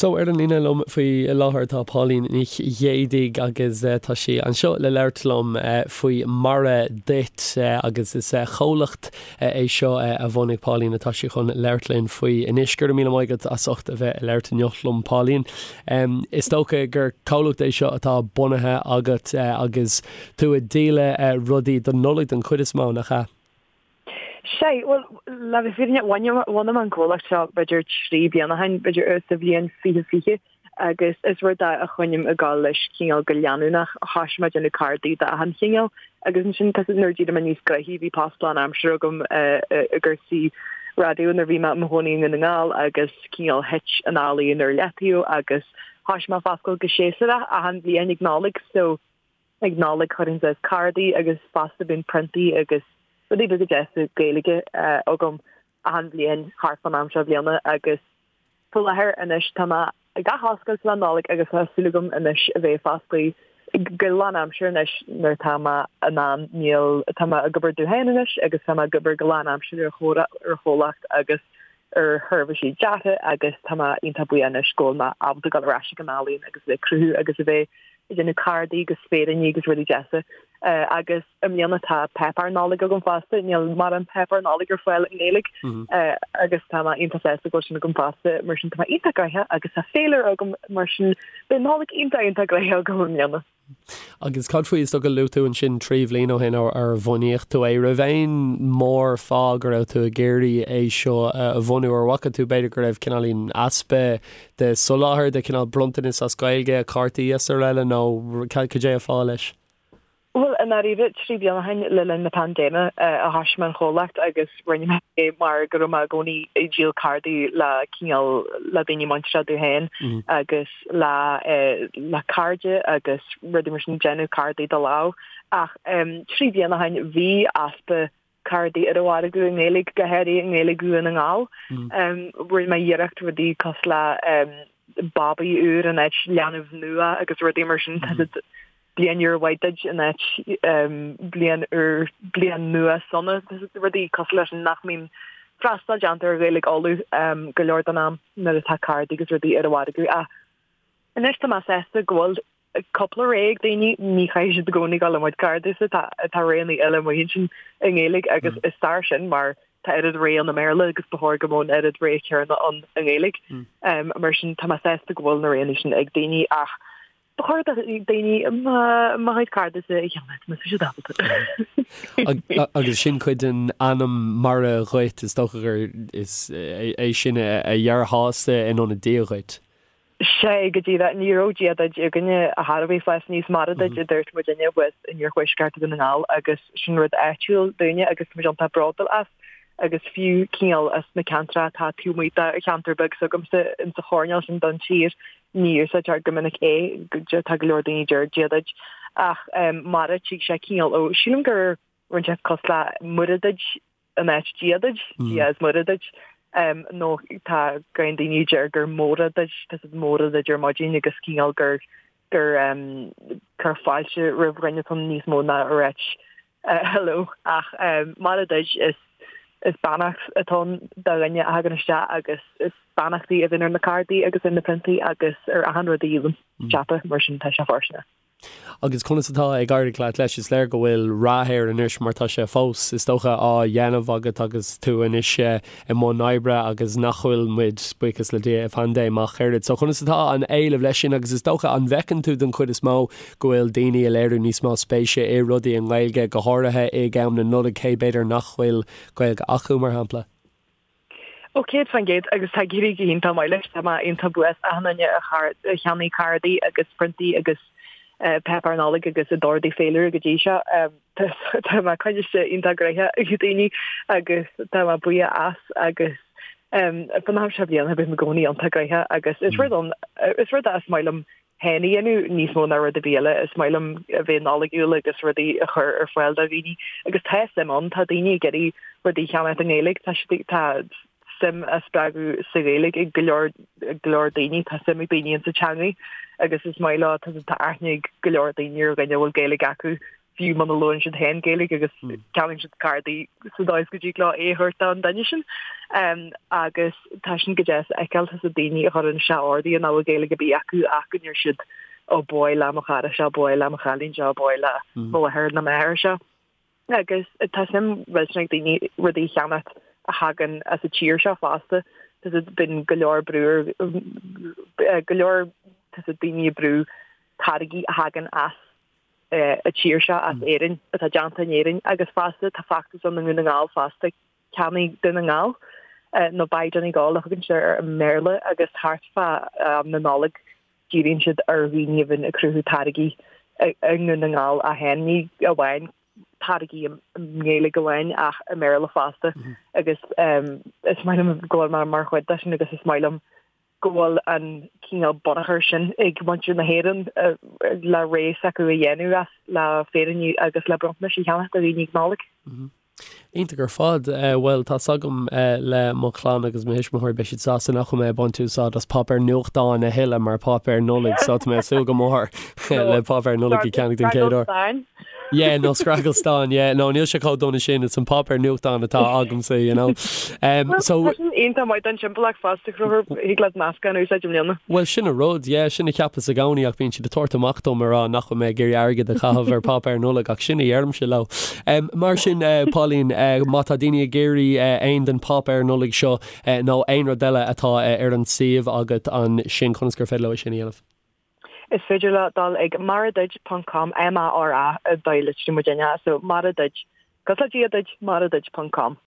So, ar an líne liom faoi láthair tá Pauline Nic Ghéidigh agus tá sí anseo le labhairt liom faoi Mara Duit agus is comhlacht é seo a bhunaigh Pauline atá sí chun labhairt linn faoi anois. Go raibh míle maith agat as ucht a bheith ag labhairt inniu liom Pauline. Is dócha gur comhlacht é seo atá bunaithe agat agus tú ag díol rudaí don Nollaig den chuid is mó, nach ea? Sea, bhuel, le bheith fírinneach, bhunaigh mé an comhlacht seo b'fhéidir 3 bliana ó shin, b'fhéidir sa bhliain 2020, agus is rud é a choinním ag gabháil leis cineál go leanúnach. Thoisigh mé ag déanamh cárdaí d'achan chineál agus ansin tá nuair a d'éirigh mé níos gnoithí bhí post lánaimseartha agam i gcúrsaí raidió nuair a bhí mé i mo chónaí i nDún na nGall agus cineál thit an ealaíon ar leataobh agus thoisigh mé ag foscailt go séasúrach achan bhliain ag Nollaig so Ag Nollaig chuirfinn suas cárdaí agus fosta bíonn priontaí agus rudaí beaga deasa Gaeilge agam achan bhliain thart fán am seo bliana agus faoi láthair anois tá mé ag athoscailt le Nollaig agus tá súil agam anois a bheith fosclaithe go lánaimseartha anois nuair atá mé in ann níl tá mé ag obair domh féin anois agus tá mé ag obair go lánaimseartha ar chomhlacht agus ar sheirbhísí deartha agus tá mé iontach buíoch anois go bhfuil mé ábalta dul ar ais ag an ealaíon agus a bheith ag cruthú agus a bheith ag déanamh cárdaí agus féiríní agus rudaí deasa. Agus i mbliana tá páipéar Nollag agam fosta, níl mórán páipéar Nollag ar fáil i nGaeilge agus tá mé iontach sásta go bhfuil sin agam fosta, mar sin tá mé iontach gnoitheach agus tá féilire agam mar sin beidh Nollaig iontach iontach gnoitheach agam i mbliana. Agus cad faoi, is dócha, luaigh tú ansin 3 bhliain ó shin ar bhunaíodh tú é. Raibh aon mór fáth go raibh tú ag iarraidh é seo a bhunú? Ar bhfaca tú b'fhéidir go raibh cineáilín easpa de soláthar de chineál bronntanas as Gaeilge, cártaí is araile nó cad é an fáth leis? Bhuel, i ndáiríre, 3 bliana ó shin, le linn na paindéime, a thoisigh mé an chomhlacht agus rinne mé é mar go raibh mé i gcónaí ag díol cárdaí le cineál, le daoine muinteartha domh féin agus le, le cairde agus rudaí mar sin, déanamh cárdaí de lámh. Ach 3 bliana ó shin, bhí easpa cárdaí ar an mhargadh i nGaeilge, go háirithe i nGaeilge Dhún na nGall. Rinne mé iarracht rudaí cosúil le babaí úr in áit leanbh nua agus rudaí mar sin. Tá siad bliain úr mhaith duit in áit bliain úr, bliain nua sona. Tá siad rudaí cosúil leis sin nach mbíonn freastal déanta ar Ghaeilge Uladh go leor den am nuair atá cárdaí agus rudaí ar an mhargadh. Ach anois tá mé sásta go bhfuil cúpla rogha ag daoine, ní chaithfidh siad i gcónaí dul i mo chuid cárdaí-sa, tá tá roghanna eile amuigh ansin i nGaeilge agus is fearr sin mar tá oiread rogha ann i mBéarla agus ba chóir go mbeadh an oiread rogha céanna ann i nGaeilge. Mar sin tá mé sásta go bhfuil na roghanna sin ag daoine ach ba chóir do daoine mo chuid cárdaí-sa a cheannach má tá siad ábalta. Agus sin cuid den ainm Mara Dhuit, is dócha gur is é sin a dhearfá-sa in ionad Dia dhuit. Sea, go díreach. Ní raibh Dia duit againne ar chor ar bith fás aníos. Mara duit a dúirt muidinne thuas in iarthuaisceart Dhún na nGall agus sin rud áitiúil dúinne agus tá muid iontach bródúil as agus fiú cineál as na ceantracha atá taobh amuigh de cheantar beag s'agamsa insa choirnéal sin den tír ní úsáidtear go minic é, tá go leor daoine a deir Dia duit ach Mara tig sé cineál ó sílim gur rinne sé cosúil le Muire duit in áit Dia duit, Dia is Muire duit, nó tá go leor daoine a deir gur Móra duit, tá siad Móra duit ar maidin agus cineál gur gur cur fáilte roimh dhuine atá níos mó ná a ráit hello. Ach Mara duit is is beannacht atá ann do dhuine a thagann isteach agus is beannachtaí a bhíonn ar na cárdaí agus ar na priontaí agus ar achan rud a dhíolaim, ceapaim, mar sin tá sé fóirsteanach. Agus conas atá ag éirí leat leis? Is léir go bhfuil rath air anois mar tá sé fós, is dócha, á dhéanamh agat agus tú anois i mbun oibre agus nach bhfuil muid, buíochas le Dia, i bpaindéim ach oiread. So conas atá an éileamh leis sin agus is dócha, an bhfeiceann tú den chuid is mó go bhfuil daoine ag léiriú níos mó spéise i rudaí i nGaeilge, go háirithe ag am na Nollag, cé b'fhéidir nach bhfuil Gaeilge acu, mar shampla? Ó, 100% agus tá ag éirí go hiontach maith leis. Tá mé iontach buíoch as achan duine a cheannaigh cárdaí agus priontaí agus páipéar Nollag agus a d'ordaigh féilire go dtí seo. Tá mé coinniste iontach gnoitheach ag daoine agus tá mé buíoch as agus fan am seo bliana bím i gcónaí iontach gnoitheach agus is rud ann is rud é is maith liom féin a dhéanamh níos mó ná rud ar bith eile. Is maith liom a bheith Nollaigiúil agus rudaí a chur ar fáil do dhaoine agus tá suim ann, tá daoine ag iarraidh rudaí a cheannacht i nGaeilge, tá siad, tá suim á spreagadh sa Ghaeilge ag go leor, go leor daoine, tá suim ag daoine insa teangaidh agus is maith leo, tá, tá aithne ag go leor daoine ar dhuine a bhfuil Gaeilge acu. fiú muna labhrann siad féin Gaeilge agus ceannaíonn siad cárdaí sa dóigh is go dtig leo é a thabhairt don duine sin. Agus tá sin go deas a fheiceáil, tá daoine a chuireann isteach ordaithe nach bhfuil Gaeilge ar bith acu ach go ndeir siad ó ba mhaith le mo chara seo, ba mhaith le mo chailín seo, ba mhaith le mo mháthair nó m'athair seo. Agus tá suim mhillteanach ag daoine rudaí a cheannacht a thagann as an tír seo fosta. Tá siad bíonn go leor brú ar go leor tá siad daoine ag brú táirgí a thagann as an tír seo, as Éirinn, atá déanta in Éirinn agus fosta tá feachtas ann i nDún na nGall fosta, Ceannaigh Dún na nGall nó Buy Donegal a thugann siad air i mBéarla agus thart fá am na Nollag díríonn siad ar dhaoine a bhíonn ag cruthú táirgí i nDún na nGall ach féin, ní amháin táirgí i nGaeilge amháin ach i mBéarla fosta agus is maith liom go bhfuil mé mar chuid de sin agus is maith liom go bhfuil an cineál bunachar sin ag muintir na hÉireann le rogha s'acu a dhéanamh as le féiríní agus le bronntanais a cheannach do dhaoine ag Nollaig. Iontach ar fad. Bhuel, tá's agam le mo chlann agus mo thuismitheoirí, beidh siad sásta nach bhfuil mé ag baint úsáid as páipéar nuachtáin a thuilleadh mar páipéar Nollag, so tá mé ag súil go mór le páipéar Nollag a cheannach den chéad uair. Yeah, nó scragall stáin, yeah. No, níl sé chomh dona sin, it's an páipéar nuachtáin atá agamsa, you know. Um, so... Tá sin iontach maith don timpeallacht fosta, Conchúr, thig leat meascán a úsáid i mbliana. Bhuel, sin an rud, yeah, sin a cheapas i gcónaí ach bíonn siad ag tabhairt amach dom ag rá nach bhfuil mé ag iarraidh airgead a chaitheamh ar pháipéar Nollag ach sin a dheirimse leo. Um, mar sin, uh, Pauline, uh, má tá daoine ag iarraidh uh, aon den páipéar Nollag seo uh, nó aon rud eile atá uh, ar an suíomh agat ansin, conas gur féidir leo é sin a dhéanamh? Is féidir leo dul ag maraduit ponc com, M-A-R-A, an dóigh a litríonn muidinne, so mara duit, cosúil le Dia duit, maraduit ponc com.